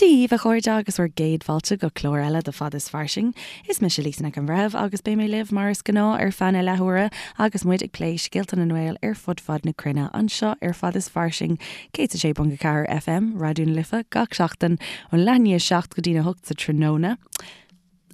Dia dhaoibh, a chairde, agus bhur gcéad fáilte go clár eile de Fad is Fairsing. Is mise Lisa Nic an Bhreithimh agus beidh mé libh mar is gnáth ar feadh na leathuaire agus muid ag plé scéalta na nGael ar fud fad na cruinne anseo ar Fad is Fairsing, 106.4 FM, Raidió na Life, gach seachtain ón leath i ndiaidh a 7 go dtína 8 sa tráthnóna.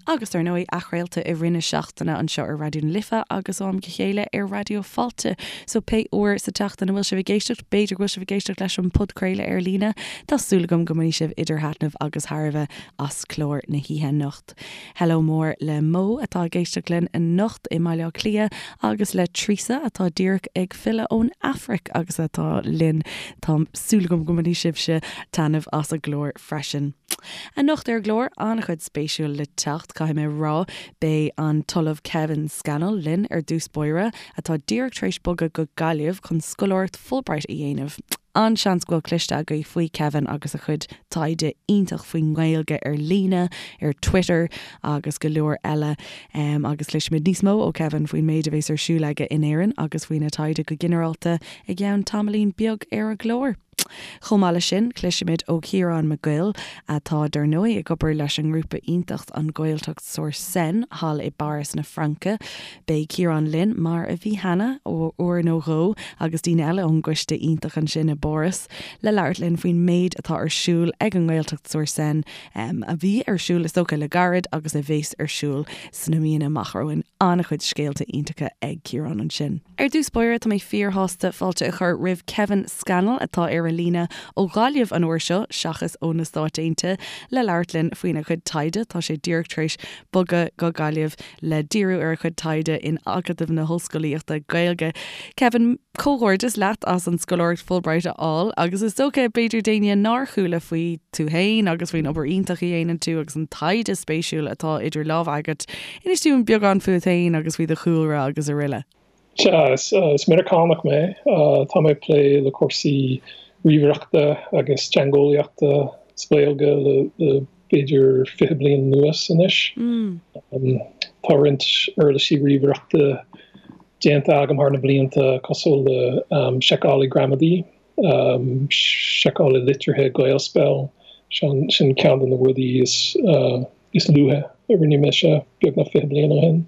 Agus dar ndóigh, athchraolta i rith na seachtaine anseo ar Raidió na Life agus ó am go chéile ar Raidió Fáilte. So pé uair sa tseachtain a bhfuil sibh ag éisteacht, b'fhéidir go bhfuil sibh ag éisteacht leis an podchraoladh ar líne, tá súil agam go mbainfidh sibh idir thaitneamh agus thairbhe as clár na hoíche anocht. Hello mór le Mo atá ag éisteacht linn anocht i mBaile Átha Cliath agus le Treasa atá díreach ag filleadh ón Afraic agus atá linn. Tá súil agam go mbainfidh sibhse taitneamh as an gclár freisin. Anocht ar an gclár, an-chuid spéisiúil le teacht, caithfidh mé a rá. Beidh an tOllamh Kevin Scannell linn ar dtús báire, atá díreach tar éis bogadh go Gaillimh chun scoláireacht Fulbright a dhéanamh. An-seans go bhfuil cloiste agaibh faoi Kevin agus a chuid taighde iontach faoin nGaeilge ar líne, ar Twitter agus go leor eile. Agus cloisfimid níos mó ó Kevin faoin méid a bhéas ar siúl aige in Éirinn agus faoina taighde go ginearálta i gceann tamaillín beag ar an gclár. Chomh maith leis sin, cloisfimid ó Chiarán Mac Goill, atá dar ndóigh ag obair leis an ngrúpa iontach An Ghaeltacht sur Seine thall i bPáras na Fraince. Beidh Ciarán linn, mar a bhí cheana, uair nó dhó, agus daoine eile ón gcoiste iontach ansin i bPáras, le labhairt linn faoin méid atá ar siúl ag an nGaeltacht sur Seine, a bhí ar siúl is dócha le gairid agus a bheas ar siúl sna míonna amach romhainn. An-chuid scéalta iontacha ag Ciarán ansin. Ar dtús báire, tá mé fíorshásta fáilte a chur roimh Kevin Scannell, atá ar an líne ó Ghaillimh an uair seo, seachas ó na Stáit Aontaithe, le labhairt linn faoina chuid taighde. Tá sé díreach tar éis bogadh go Gaillimh le díriú ar a chuid taighde in Acadamh na hOllscolaíochta Gaeilge. Kevin, comhghairdeas leat as an scoláireacht Fulbright a fháil, agus is dócha, b'fhéidir d'éinne nár chuala faoi tú féin agus faoin obair iontach a dhéanann tú agus an taighde spéisiúil atá idir lámha agat, Inis dúinn beagán fút féin agus faoi do chúlra agus aroile. Sea, is Meiriceánach mé. Tá mé ag plé le cúrsaí ríomhaireachta agus teangeolaíochta sa Ghaeilge le b'fhéidir 20 bliain anuas anois. Tá roinnt uirlisí ríomhaireachta déanta agam thar na blianta cosúil le seiceálaí gramadaí, seiceálaí litrithe Gaelspell, sin ceann de na rudaí is is luaithe a rinne mise, beagnach 20 bliain ó shin.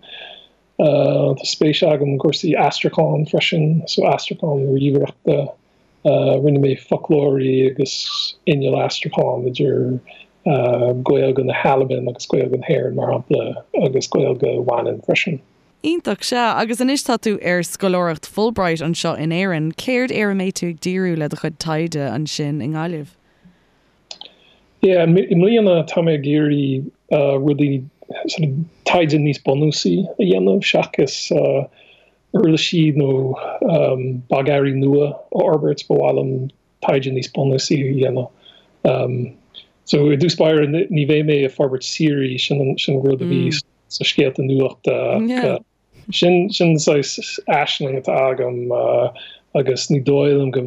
Tá spéis agam i gcúrsaí aistriúcháin freisin, so aistriúchán ríomhaireachta. Rinne mé foclóirí agus inneall aistriúcháin idir Gaeilge na hAlban agus Gaeilge na hÉireann, mar shampla, agus Gaeilge Mhanann freisin. Iontach, sea. Agus anois tá tú ar scoláireacht Fulbright anseo in Éirinn. Céard ar a mbeidh tú ag díriú le do chuid taighde ansin i nGaillimh? Yeah, i mbliana tá mé ag iarraidh rudaí, sort of taighde níos bunúsaí a dhéanamh seachas uirlisí nó bogearraí nua a fhorbairt, ba mhaith liom taighde níos bunúsaí a dhéanamh. So i dtús báire ní bheidh mé ag forbairt Siri, sin an rud a bhí sna scéalta nuachta ach Sin sin saghas aisling atá agam agus ní dóigh liom go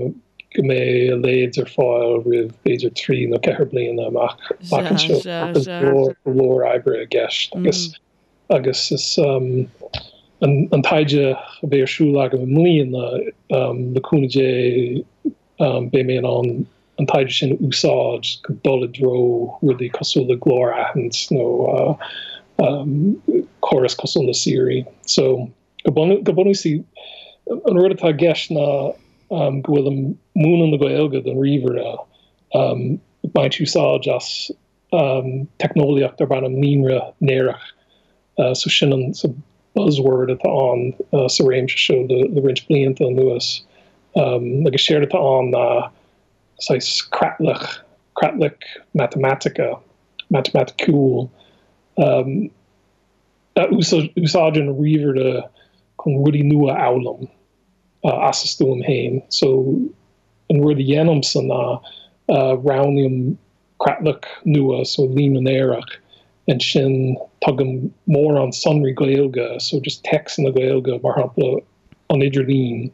go mbeidh a leithéid ar fáil roimh b'fhéidir 3 nó 4 bliana amach amach anseo. Tá go leor go leor oibre i gceist agus agus is an an taighde a bheidh ar siúl agam i mbliana le cúnamh Dé beidh mé in ann an taighde sin a úsáid chun dul i dtreo rudaí cosúil le glór-aithint nó córas cosúil le Siri. So, go bunúsach, an rud atá i gceist ná go bhfuilim ag múineadh na Gaeilge don ríomhaire, ag baint úsáid as teicneolaíocht darb ainm líonra néarach. So sin an buzzword atá ann sa réimse seo le roinnt blianta anuas. Agus séard atá ann ná saghas creatlach, creatlach matamaitice, matamaiticiúil, a úsáideann an ríomhaire chun rudaí nua a fhoghlaim as a stuaim féin. So an rud a dhéanaimse ná roghnaím creatlach nua, so líonra néarach, ansin tugaim mórán sonraí Gaeilge, so just téacsanna Gaeilge, mar shampla an idirlíon,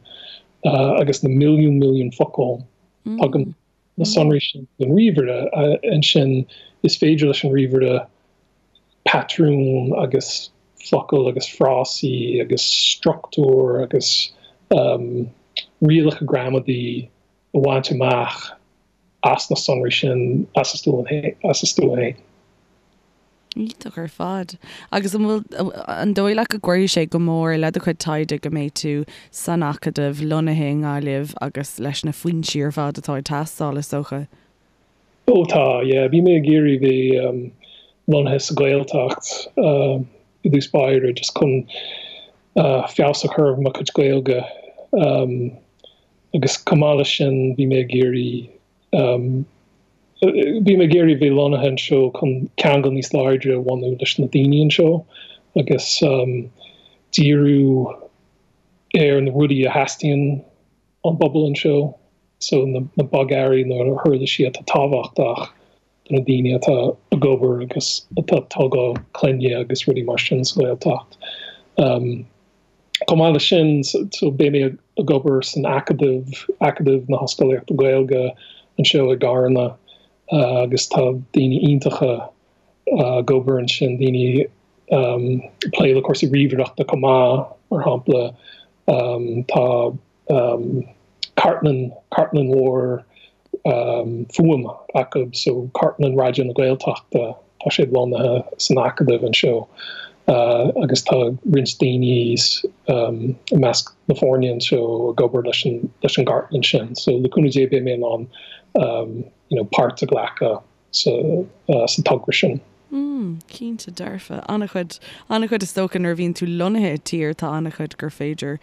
agus na milliún milliún focal, tugaim na sonraí sin don ríomhaire, ansin is féidir leis an ríomhaire patrúin agus focail agus frásaí agus struchtúr agus rialacha gramadaí a bhaint amach. as na sonraí sin as a stuaim féin. Iontach ar fad. Agus an bhfuil, an dóigh leat go gcuirfidh sé go mór le do chuid taighde go mbeidh tú san Acadamh, lonnaithe i nGaillimh agus leis na foinsí ar fad atá ag teastáil, is dócha? Ó tá, yeah. Bhí mé ag iarraidh bheith lonnaithe sa Ghaeltacht i dtús báire just chun feabhas a chur ar mo chuid Gaeilge agus chomh maith leis sin bhí mé ag iarraidh Bhí mé ag iarraidh bheith lonnaithe anseo chun ceangal níos láidre a bhunú leis na daoine anseo agus díriú ar na rudaí a theastaíonn ón bpobal anseo, so na bogearraí nó na huirlisí atá tábhachtach do na daoine atá ag obair agus atá ag tógáil clainne agus rudaí mar sin sa Ghaeltacht. Chomh maith leis sin, so beidh mé ag obair san Acadamh, Acadamh na hOllscolaíochta Gaeilge anseo i gCarna agus tá daoine iontacha ag obair ansin, daoine ag plé le cúrsaí ríomhaireachta chomh maith, mar shampla tá cartlann, cartlann mhór fuaime acu, so cartlann Raidió na Gaeltachta, tá siad lonnaithe san Acadamh anseo agus tá roinnt daoine i measc na foirne anseo ag obair leis an leis an gcartlann sin. So le cúnamh Dé beidh mé in ann you know páirt a ghlacadh sa sa togra sin. Mm, cinnte dearfa. An-chuid, an-chuid is dócha nuair a bhíonn tú lonnaithe i dtír tá an-chuid gur féidir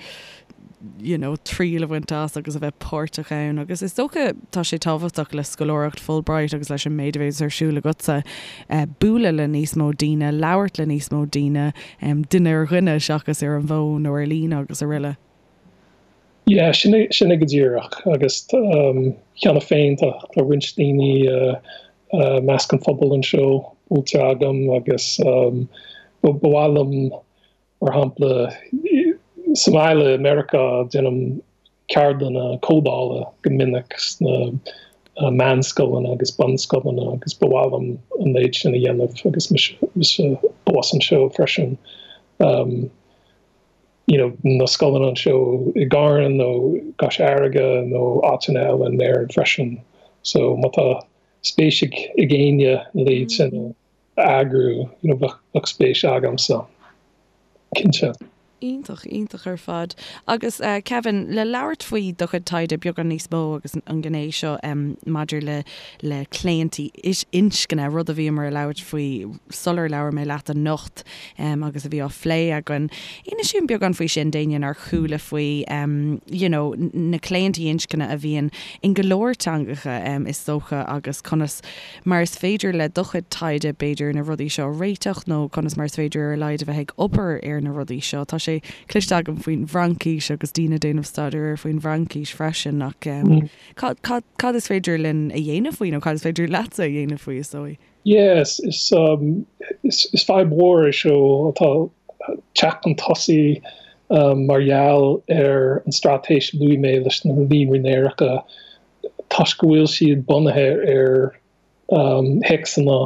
you know triail a bhaint as agus a bheith páirteach ann agus is dócha tá sé tábhachtach le scoláireacht Fulbright agus leis an méid a bhéas ar siúl agatsa bualadh le níos mó daoine, labhairt le níos mó daoine, duine ar dhuine seachas ar an bhfón nó ar líne agus araile. Yeah, sin é, sin é go díreach agus cheana féin tá roinnt daoine i measc an phobail anseo buailte agam agus ba mhaith liom, mar shampla, sa mbaile i Meiriceá déanaim ceardlanna códála go minic sna meánscoileanna agus bunscoileanna agus ba mhaith liom an méid sin a dhéanamh agus mise abhus anseo freisin. you know, na scoileanna anseo i gCarna nó i gCois Fharraige nó áiteanna eile in Éirinn freisin. So má tá spéis ag ag éinne a leithéid sin a eagrú, you know, bheadh bheadh spéis agamsa, cinnte. Iontach, iontach ar fad. Agus Kevin, le labhairt faoi do chuid taighde beagán níos mó agus an ghné seo maidir le le claontaí inscne, rud a bhíomar ag labhairt faoi sular labhair mé leat anocht, agus a bhí á phlé againn. Inis dúinn beagán faoi sin d'éinne nár chuala faoi you know na claontaí inscne a bhíonn in go leor teangacha is dócha agus conas mar is féidir le do chuid taighde b'fhéidir na rudaí seo a réiteach nó conas mar is féidir ar a laghad a bheith ag obair ar na rudaí seo. Tá sé cloiste agam faoin bhFraincis agus daoine ag déanamh staidéir ar faoin bhFraincis freisin ach cad cad cad is féidir linn a dhéanamh faoi nó cad is féidir leatsa a dhéanamh faoi is dóigh? Yes, is is fadhb mhór é seo atá ag teacht chun tosaigh mar gheall ar an straitéis a luaigh mé leis na líonraí néaracha toisc go bhfuil siad bunaithe ar théacsanna,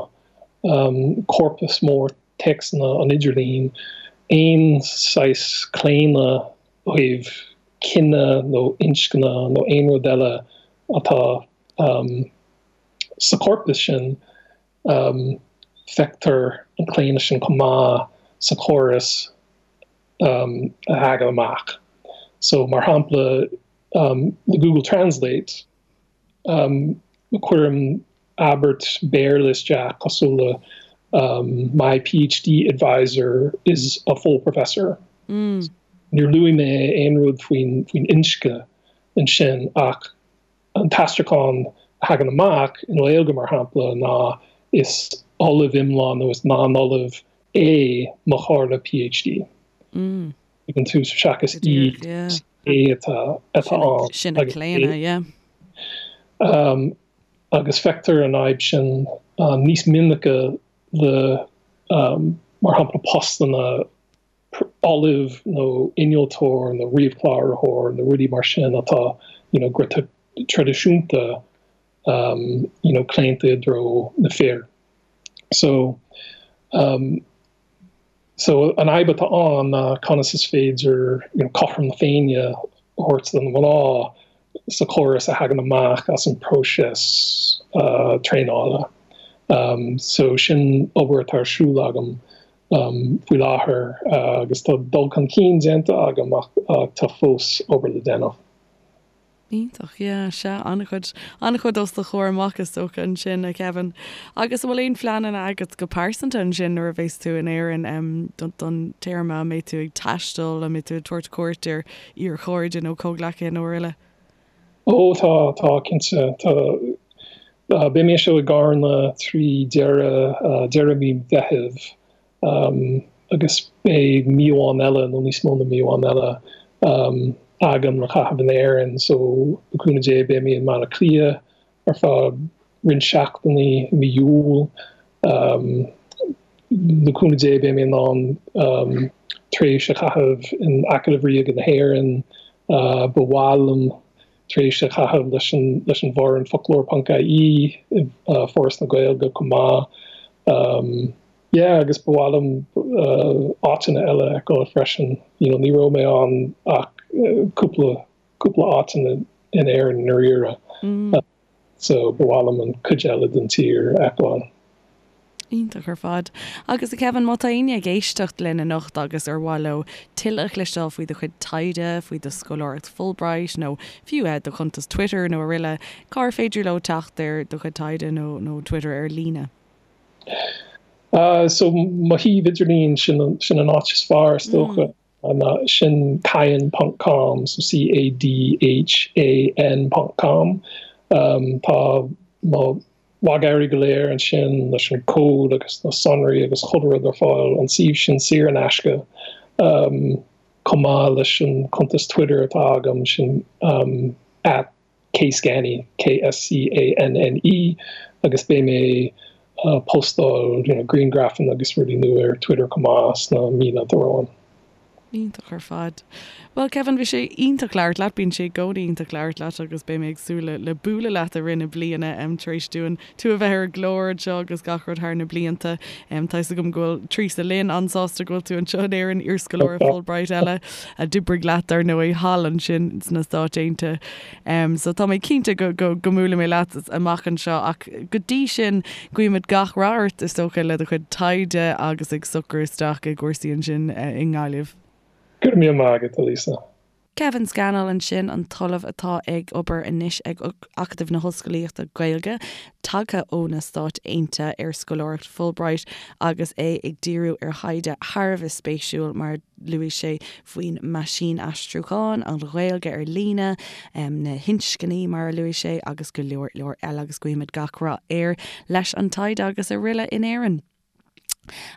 corpas mór téacsanna an idirlín, aon saghas claonadh ó thaobh cine nó inscne nó aon rud eile atá Sa chorpas sin, feictear an claonadh sin chomh maith sa chóras a thagann amach. So, mar shampla, le Google Translate, cuirim abairt Béarla isteach cosúil le My PhD advisor is a full professor. Níor luaigh mé aon rud faoin inscne ansin ach An t-aistriúchán a thagann amach i nGaeilge, mar shampla, ná is ollamh iomlán nó is lán-ollamh é mo chomhairleoir PhD. Tuigeann tú, seachas í, is é atá ann. Sin an claonadh, yeah. Agus feictear an fhadhb sin níos minice le, mar shampla, postanna ollamh nó innealtóir nó ríomhchláraitheoir nó rudaí mar sin atá you know go traidisiúnta um you know claonta i dtreo na fir. So um so an fhadhb atá ann ná conas is féidir you know cothrom na Féinne a thabhairt do na mná. sa chóras a thagann amach as an próiseas traenála. So sin obair atá ar siúl agam faoi láthair agus tá dul chun cinn déanta agam ach tá fós obair le déanamh. Iontach, yeah, sea, an-chuid, an-chuid os do chomhair amach is dócha ansin, a Kevin. Agus an bhfuil aon phleananna agat go pearsanta ansin nuair a bheas tú in Éirinn don téarma, an mbeidh tú ag taisteal, an mbeidh tú ag tabhairt cuairt ar iarchairde nó comhghleacaithe nó araile? Ó tá, tá, cinnte. Tá, beidh mé anseo i gCarna trí deireadh, deireadh mí Mheithimh. Agus beidh mí amháin eile, nó níos mó na mí amháin eile, agam le caitheamh in Éirinn. So, le cúnamh Dé, beidh mé i mBaile Átha Cliath ar feadh roinnt seachtainí i mí Iúil. Le cúnamh Dé, beidh mé in ann tréimhse a chaitheamh in Acadamh Ríoga na hÉireann. Ba mhaith liom tréimhse a chaitheamh leis an leis an bhfoireann Foclóir ponc ie i Foras na Gaeilge chomh maith. Yeah agus ba mhaith liom áiteanna eile a fheiceáil freisin. You know ní raibh mé ann ach cúpla cúpla áit in Éirinn i ndáiríre. So ba mhaith liom an cuid eile den tír a fheiceáil. Iontach ar fad. Agus a Kevin, má tá éinne ag éisteacht linn anocht agus ar mhaith leo tuilleadh a chloisteáil faoi do chuid taighde, faoi do scoláireacht Fulbright nó fiú do chuntas Twitter nó araile, cár féidir leo teacht ar do chuid taighde nó nó Twitter ar líne? So mo shuíomh idirlín, sin sin an áit is fearr is dócha. Ná sin cadhan ponc com, so C-A-D-H-A-N ponc com. Tá mo bhogearraí go léir ansin leis an cód agus na sonraí agus chuile rud ar fáil, an suíomh sin saor in aisce, chomh maith leis an cuntas Twitter atá agam, sin at kscanne, K-S-C-A-N-N-E, agus beidh mé ag postáil you know grianghrafanna agus rudaí nua ar Twitter chomh maith sna míonna atá romhainn. Iontach ar fad. Bhuel Kevin, bhí sé iontach labhairt leat, bíonn sé i gcónaí iontach labhairt leat agus beidh mé ag súil le bualadh leat i rith na bliana tar éis dúinn tú a bheith ar an gclár anseo agus gach rud thar na blianta. Tá fhios agam go bhfuil Teresa Lynn an-sásta go bhfuil tú anseo in Éirinn, iarscoláire Fulbright eile a d'oibrigh leat dar ndóigh thall ansin sna Stáit Aontaithe. So tá mé cinnte go go go mbuailfidh mé leat amach anseo ach go dtí sin guímid gach rath ort is dócha le do chuid taighde agus ag socrú isteach i gcúrsaí ansin i nGaillimh. Go raibh míle maith agat, a Lisa. Kevin Scannell ansin, an tOllamh atá ag obair anois ag Acadamh na hOllscolaíochta Gaeilge, tagtha ó na Stáit Aontaithe ar scoláireacht Fulbright agus é ag díriú ar thaighde thar a bheith spéisiúil mar a luaigh sé faoin meaisínaistriúchán, an Ghaeilge ar líne, na hinscní mar a luaigh sé agus go leor leor eile agus guímid gach rath air leis an taighde agus araile in Éirinn.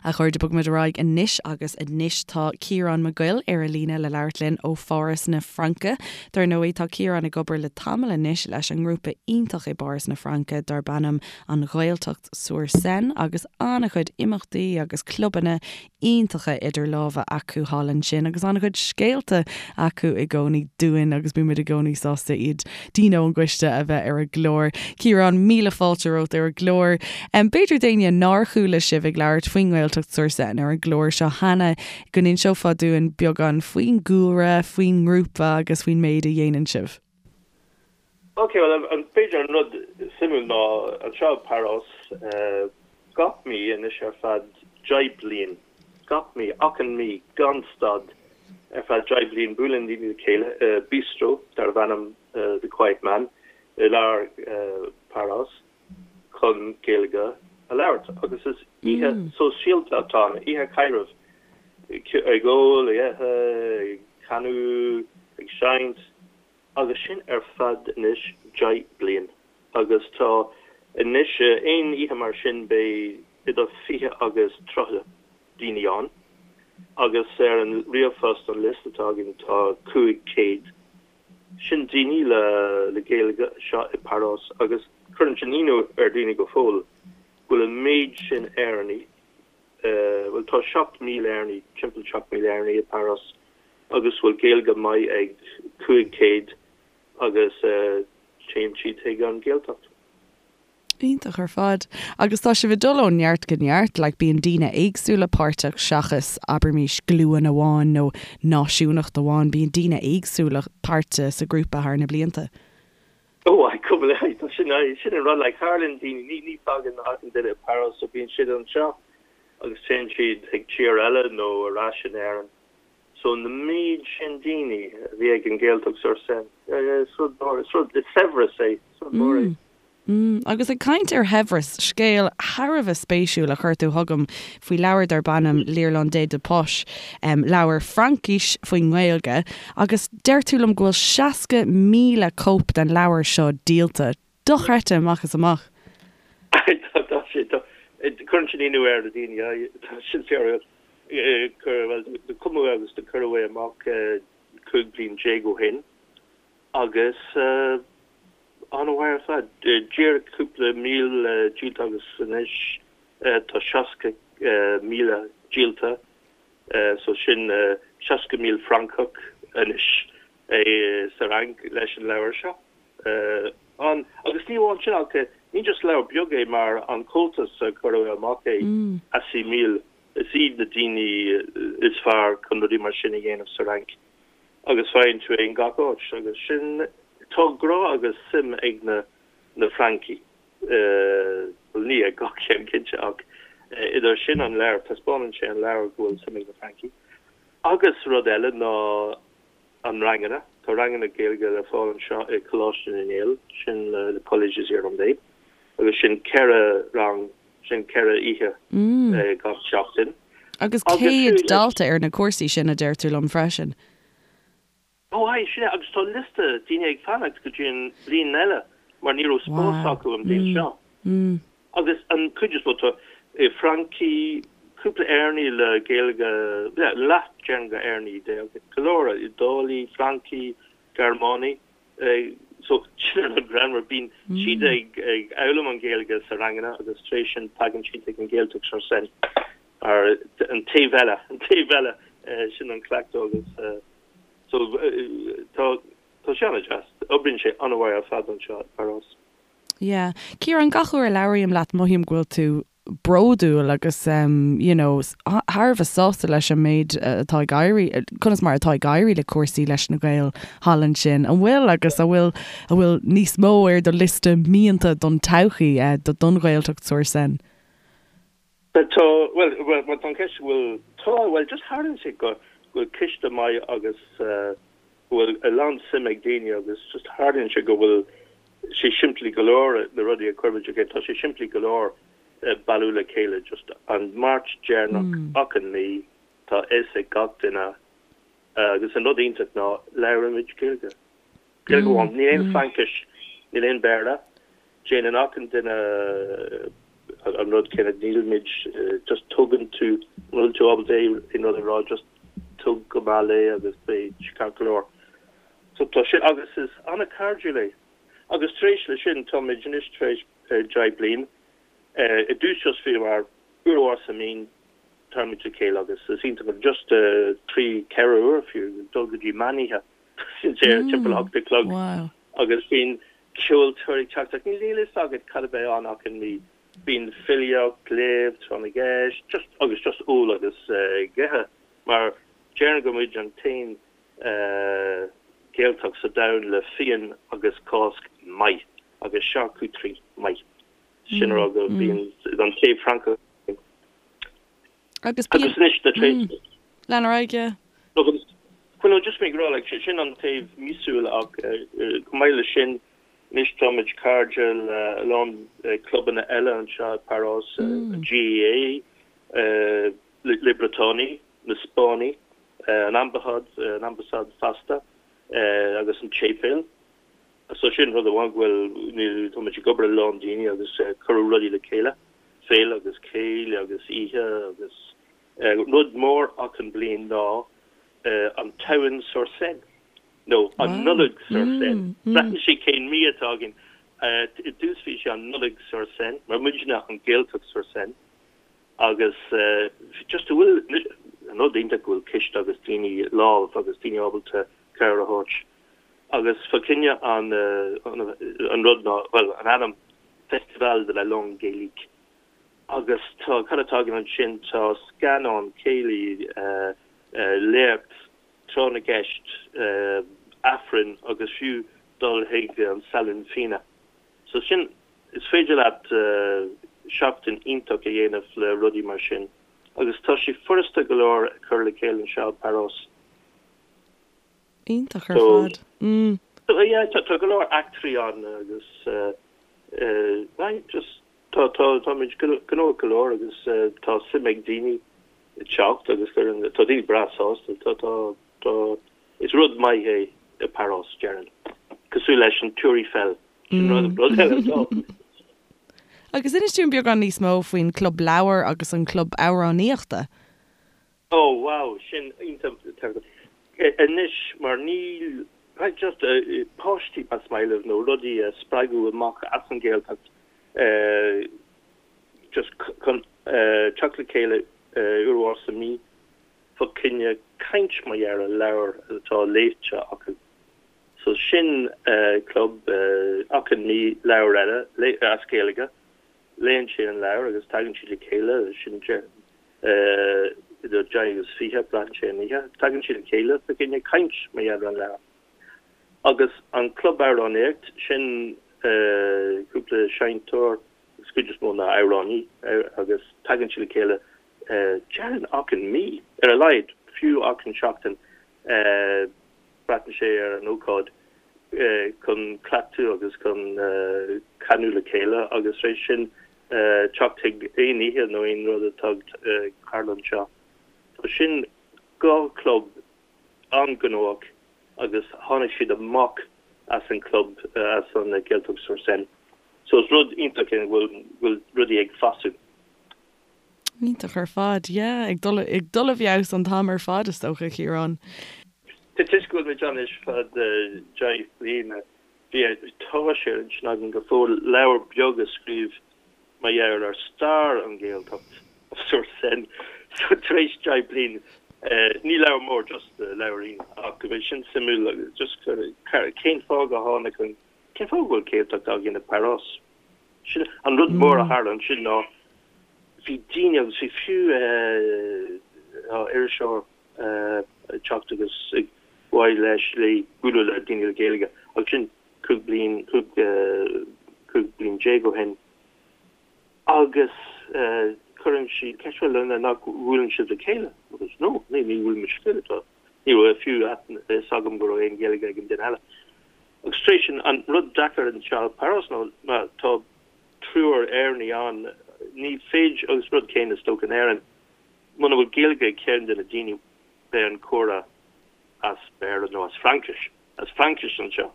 A chairde, bogfaimid ar aghaidh anois agus anois tá Ciarán Mac Goill ar an líne le labhairt linn ó Pháras na Fraince. Dar ndóigh, tá Ciarán ag obair le tamall anois leis an ngrúpa iontach i bPáras na Fraince darb ainm An Ghaeltacht sur Seine agus an-chuid imeachtaí agus clubanna iontacha idir lámha acu thall ansin agus an-chuid scéalta acu i gcónaí dúinn agus bímid i gcónaí sásta iad, daoine ón gcoiste a bheith ar an gclár. Ciarán, míle fáilte romhat ar an gclár. B'fhéidir d'éinne nár chuala sibh ag labhairt faoin nGaeltacht sur Seine ar an gclár seo cheana, go n-inseofá dúinn beagán faoin gcúlra, faoin ngrúpa agus faoin méid a dhéanann sibh. Ok, bhuel, b'fhéidir an rud suimiúil ná anseo i bPáras, gach mí anois ar feadh 10 bliain, gach mí, achan mí, gan stad, ar feadh 10 bliain, buaileann daoine le chéile i bistro darbh ainm The Quiet Man i lár Páras chun Gaeilge a labhairt. Agus is oíche sóisialta atá ann, oíche chaidrimh, ag ól, ag ithe, ag canadh, ag seinnt. Agus sin ar feadh anois 10 bliain. Agus tá anois, aon oíche mar sin beidh idir 20 agus 30 daoine ann. Agus ar an ríomhphost, an liosta atá againn, tá 500. Sin daoine le le Gaeilge anseo i bPáras agus cuireann sin ionadh ar daoine go fóill go bhfuil an méid sin Éireannaigh, bhuel tá 7,000 Éireannaigh, timpeall 7,000 Éireannaigh i bPáras agus bhfuil Gaeilge maith ag 500 agus téann siad chuig an Ghaeltacht. Iontach ar fad. Agus tá sibh ag dul ó neart go neart, like bíonn daoine éagsúla páirteach seachas, abraimis, glúin amháin nó náisiúnacht amháin, bíonn daoine éagsúla páirteach sa ghrúpa thar na blianta. Ó, aye, cúpla, aye, tá sin, aye, sin an rud, like, tharlaíonn daoine, ní, ní fágann achan duine Páras, so bíonn siad anseo agus téann siad chuig tír eile nó ar ais in Éirinn. So na méid sin daoine a bhí ag an Gaeltacht sur Seine, yeah, yeah, is rud mór, is rud, is saibhreas é, is rud mór é. Mm, agus ag caint ar shaibhreas, scéal thar a bheith spéisiúil a chuir tú chugam faoi leabhar darb ainm L'Irlandais de Poche, leabhar Fraincise faoin nGaeilge, agus deir tú liom go bhfuil 60,000 cóip den leabhar seo díolta. Dochreidte amach is amach. Tá, tá sé, tá, cuireann sin ionadh ar na daoine, tá sin fíor, bhuel, do cumadh agus do cuireadh é amach 15 bliain ó shin agus, An-mhaith ar fad. Díreach cúpla míle díolta agus anois tá 60,000 díolta so sin 60,000 Francach anois sa Fhrainc leis an leabhar seo. An, agus ní amháin sin ach ní just leabhar beag é mar an Comhaltas a cuireadh amach é, Assimil, is iad na daoine is fearr chun rudaí mar sin a dhéanamh sa Fhrainc. agus faigheann tú é in gach áit agus sin, tá grá agus suim ag na na Francaigh, bhuel ní ag gach ceann cinnte ach idir sin an leabhar, taispeánann sé an leabhar go bhfuil suim ag na Francaigh. Agus rud eile ná an ranganna, tá ranganna Gaeilge le fáil anseo i Coláiste na nGael, sin le Collège des Irlandais agus sin 4 rang, sin 4 oíche gach seachtain. Agus 100 dalta ar na cúrsaí sin, a deir tú liom freisin. Ó aye, sin é, agus tá liosta daoine ag fanacht go dtí an bhliain eile mar ní raibh spás acu an bhliain seo. Agus an cuid is mó, tá Francaigh, cúpla Éireannaigh le Gaeilge, leath déarfainn go Éireannaigh, go leor Iodálaigh, Francaigh, Gearmánaigh. So, sin an rud greannmhar, bíonn siad ag foghlaim an Ghaeilge sa ranganna agus tar éis sin tagann siad chuig an Ghaeltacht sur Seine ar an taobh eile, an taobh eile, sin an cleachtadh agus so tá tá sé an-deas, oibríonn sé an-mhaith ar fad anseo i bPáras. Yeah. Ciarán, gach uair a labhraím leat mothaím go bhfuil tú bródúil agus you know thar a bheith sásta leis an méid atá ag éirí, conas mar atá ag éirí le cúrsaí leis na Gaeil thall ansin. An bhfuil agus an bhfuil an bhfuil níos mó ar do liosta mianta don todhchaí don Ghaeltacht sur Seine? Tá, bhuel, bhuel tá an cheist an bhfuil, tá, bhuel just tharlaíonn sé go bhfuil ciste maith agus go bhfuil a lán suim ag daoine agus just tharlaíonn sé go bhfuil sé simplí go leor na rudaí a chuirimid le chéile, tá sé simplí go leor bailiú le chéile just an Máirt deireanach achan mí tá a fhios ag gach duine agus an rud iontach ná labhraímid Gaeilge. Gaeilge amháin, níl aon Fraincis, níl aon Béarla. Déanann achan duine an rud céanna, nílimid, just tugann tú, an bhfuil tú ábalta aon rud a rá, just tug go mall é agus beidh sé ceart go leor. So tá sin, agus is an-chairdiúil é. Agus tar éis le sin, táimid anois tar éis 10 bliain, i dtús just bhíomar uair amháin sa mí, táimid le chéile agus is iontach just 3, 4 uair fiú, dul go dtí meánoíche. Sin timpeall a hocht a chlog agus bíonn ceoltóirí ag teacht ach níl a fhios agat cad a bheidh ann achan mí. Bíonn filíocht, léamh, tráth na gceist, just agus just ól agus ag ithe mar déarfainn go muid an t-aon Gaeltacht sa domhan le fíon agus Cásc maith agus charcuterie maith. Sin a rá go bíonn an taobh Francach. Agus bíonn. Agus anois, tar éis. Lean ar aghaidh, yeah. Agus, well no, just mé ag rá, like, sin an taobh míosúil ach chomh maith leis sin, anois táimid cairde le a lán clubanna eile anseo i bPáras, an GAA, Les Briotánaigh, na Spáinnigh, an Ambasáid, an Ambasáid fosta, agus an tséipéal. So sin rud amháin go bhfuil, táimid ag obair le a lán daoine agus cuireadh rudaí le chéile, féile agus céilí agus oíche agus rud mór achan bliain ná an tSamhain sur Seine nó an Nollaig sur Seine. Braitheann sé cén mí atá againn. I dtús bhí sé an Nollaig sur Seine mar muidne an Ghaeltacht sur Seine agus just go bhfuil an rud iontach go bhfuil ciste agus daoine lámh agus daoine ábalta cabhair a thabhairt. Agus fá choinne an an rud ná, bhuel, an ainm Festival de la Langue Gaélique. Agus tá, cad atá againn ansin, tá scannán, céilí, léacht, tráth na gceist, Aifreann agus fiú. dul chuig an salon fíona. So sin, is féidir leat seachtain iontach a dhéanamh le rudaí mar sin agus tá sé furasta go leor a chur le chéile anseo i bPáras. Iontach ar fad. Mm. So yeah, tá go leor eachtraí ann agus eh, just tá tá táimid gnóthach go leor agus tá suim ag daoine teacht agus cuireann tá daoine breá sásta tá tá tá is rud maith é i Páras déarfainn cosúil leis an Tour Eiffel sin rud rud eile atá. Agus inis dúinn beagán níos mó faoin Club Leabhar agus an Club Amhránaíochta. Oh wow, sin iontach anois mar níl just páistí más maith libh nó rudaí a spreagadh amach as an Ghaeltacht just chun teacht le chéile uair amháin sa mí fá choinne caint mar gheall ar leabhar atá léite acu. So sin club achan mí leabhar eile as Gaeilge, léann siad an leabhar agus tagann siad le chéile, sin idir 10 agus 20, braitheann sé an oíche, tagann siad le chéile fá choinne caint mar gheall ar an leabhar. Agus an club amhránaíocht, sin cúpla seinnteoir, agus cuid is mó ná amhránaí, agus tagann siad le chéile déarfainn achan mí, ar a laghad, fiú achan seachtain, braitheann sé ar an ócáid, chun cleachtadh agus chun canadh le chéile agus tar éis sin teacht chuig aon oíche nó aon rud atá ag tarlú anseo. So sin dhá chlub an-ghnóthach agus tháinig siad amach as an club, as an Gaeltacht sur Seine. So is rud iontach é go bhfuil rudaí ag fású. Iontach ar fad, yeah, ag dul ag dul i bhfeabhas an t-am ar fad is dócha, a Chiaráin. Toisc go bhfuil muid ann anois fad 10 bliana, bhí tá sé ar intinn agam go fóill leabhar beag a scríobh mar gheall ar stair an Ghaeltacht sur Seine. So tar éis 10 bliain, ní leabhar mór, just leabhairín, ach go mbeidh sin suimiúil agus just cén fáth go tháinig an, cén fáth go bhfuil Gaeltacht againn i bPáras? Sin an rud mór a tharla ansin ná bhí daoine agus bhí fiú iriseoir ag teacht agus ag mhaith leis léi bualadh le daoine le Gaeilge agus sin 15 bliain, 15 bliain ó shin agus cuireann sí ceist bhuel nach bhfuileann sibh le chéile agus no ní ní bhfuil muid le chéile tá ní raibh fiú a fhios agam go raibh aon Ghaeilge ag an duine eile. Agus tar éis sin, an rud deacair anseo i Páras ná má tá triúr Éireannaigh ann, ní féidir, agus rud céanna is dócha in Éirinn, muna bhfuil Gaeilge ag ceann de na daoine, beidh an comhrá as Béarla nó as Fraincis, as Fraincis anseo.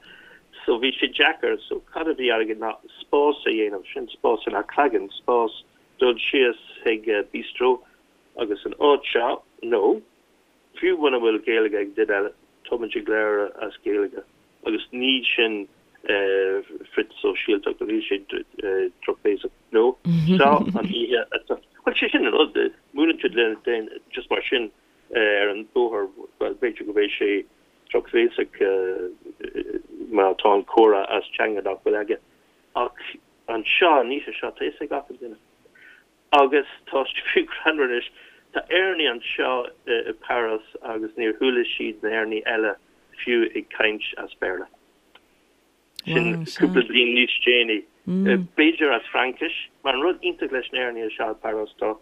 So bhí sé deacair. So cad a bhí againn ná spás a dhéanamh, sin spás in Achragan, spás dul síos chuig bistro agus an áit seo, nó Fiú muna bhfuil Gaeilge ag duine eile, tá muid ag labhairt as Gaeilge agus ní sin frith-sóisialtacht, níl sé drochbhéasach. No, seo an oíche atá, bhuel, sé sin an rud, múineann siad le daoine just mar sin ar an bóthar, bhuel, b'fhéidir go mbeidh sé drochbhéasach má tá an comhrá as teanga nach bhfuil aige. Ach anseo, an oíche seo, tá fhios ag achan duine. Agus tá sé fiú greannmhar anois, tá Éireannaigh anseo i Páras agus níor chuala siad na hÉireannaigh eile fiú ag caint as Béarla. Sin cúpla bliain níos déanaí. B'fhéidir as Fraincis, mar an rud iontach leis na hÉireannaigh anseo i Páras tá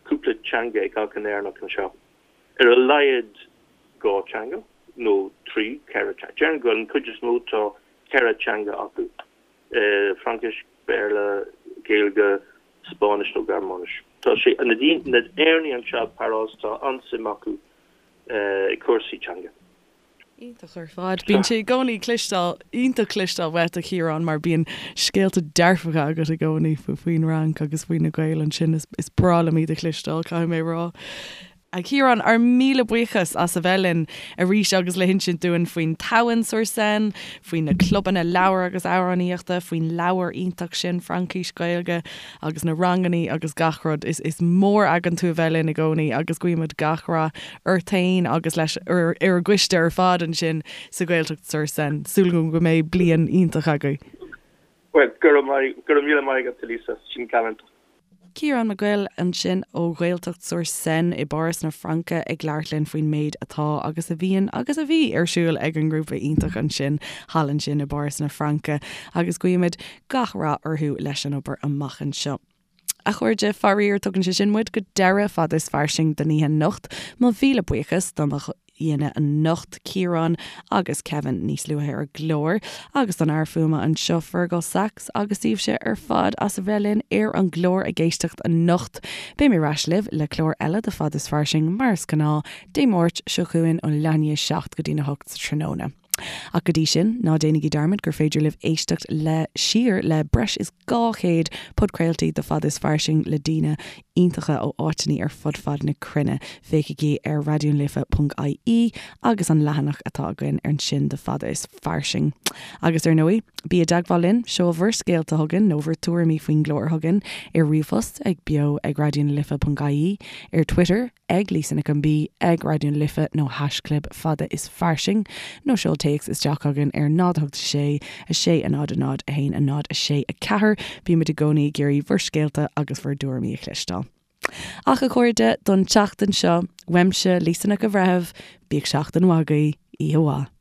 cúpla teanga ag achan Éireannach anseo. Ar a laghad dhá teanga, nó trí, ceithre teanga. Déarfainn go an chuid is mó tá ceithre teanga acu. Fraincis, Béarla, Gaeilge, Spáinnis nó Gearmáinis. Tá sé, na Éireannaigh anseo i bPáras, tá an-suim acu i cúrsaí teanga. Iontach ar fad. Bíonn sé i gcónaí cloisteáil, iontach cloisteáil uait a Chiaráin mar bíonn scéalta dearfacha agat i gcónaí faoin Fhrainc agus faoi na Gaeil ansin. Is breá liom iad a chloisteáil, caithfidh mé a rá. A Chiaráin, ár míle buíochas as a bheith linn arís agus le hinsint dúinn faoin Tamhain sur Seine, faoi na clubanna leabhar agus amhránaíochta, faoin leabhar iontach sin, Fraincis Gaeilge, agus na rangannaí agus gach rud. Is is mór againn tú a bheith linn i gcónaí agus guímid gach rath ort fhéin agus leis ar an gcoiste ar fad ansin sa Ghaeltacht sur Seine. Súil agam go mbeidh bliain iontach agaibh. Bhuel, go raibh maith, go raibh míle maith agat, a Lisa, sin galánta. Ciarán Mac Goill ansin ó Ghaeltacht sur Seine i bPáras na Fraince ag labhairt linn faoin méid atá agus a bhíonn agus a bhí ar siúl ag an ngrúpa iontach ansin thall ansin i bPáras na Fraince agus guímid gach rath orthu leis an obair amach anseo. A chairde, faraor, tugann sé sin muid go deireadh Fada is Fairsing don oíche anocht. Mo mhíle buíochas do mo aíonna anocht, Ciarán agus Kevin níos luaithe ar an gclár, agus don fhear fuaime anseo, Fergal Sachs, agus daoibhse ar fad as a bheith linn ar an gclár ag éisteacht anocht. Beidh mé ar ais libh le clár eile de Fada is Fairsing, mar is gnáth, Dé Máirt seo chugainn ó leath i ndiaidh a 7 go dtína 8 sa tráthnóna. Ach go dtí sin, ná déanaigí dearmad gur féidir libh éisteacht le siar le breis is 200 podchraoltaí de Fada is Fairsing le daoine iontacha ó áiteanna ar fud fad na cruinne. Féachaigí ar raidionalife.ie agus an leathanach atá againn ansin de Fada is Fairsing. Agus ar ndóigh, bí i dteagmháil linn, seol bhur scéalta chugainn nó bhur tuairimí faoin gclár chugainn ar ríomhphost ag beo ag raidionalife.ie, ar Twitter, ag Lisa Nic an B, ag Raidió na Life nó haischlib Fada is Fairsing, nó seol téacs isteach chugainn ar 0 8 6 6 0 0 1 0 6 4. Bímid i gcónaí ag iarraidh bhur scéalta agus bhur dtuairimí a chloisteáil. Ach a chairde, don tseachtain seo, uaimse, Lisa Nic an Bhreithimh, bíodh seachtain mhaith agaibh, oíche mhaith.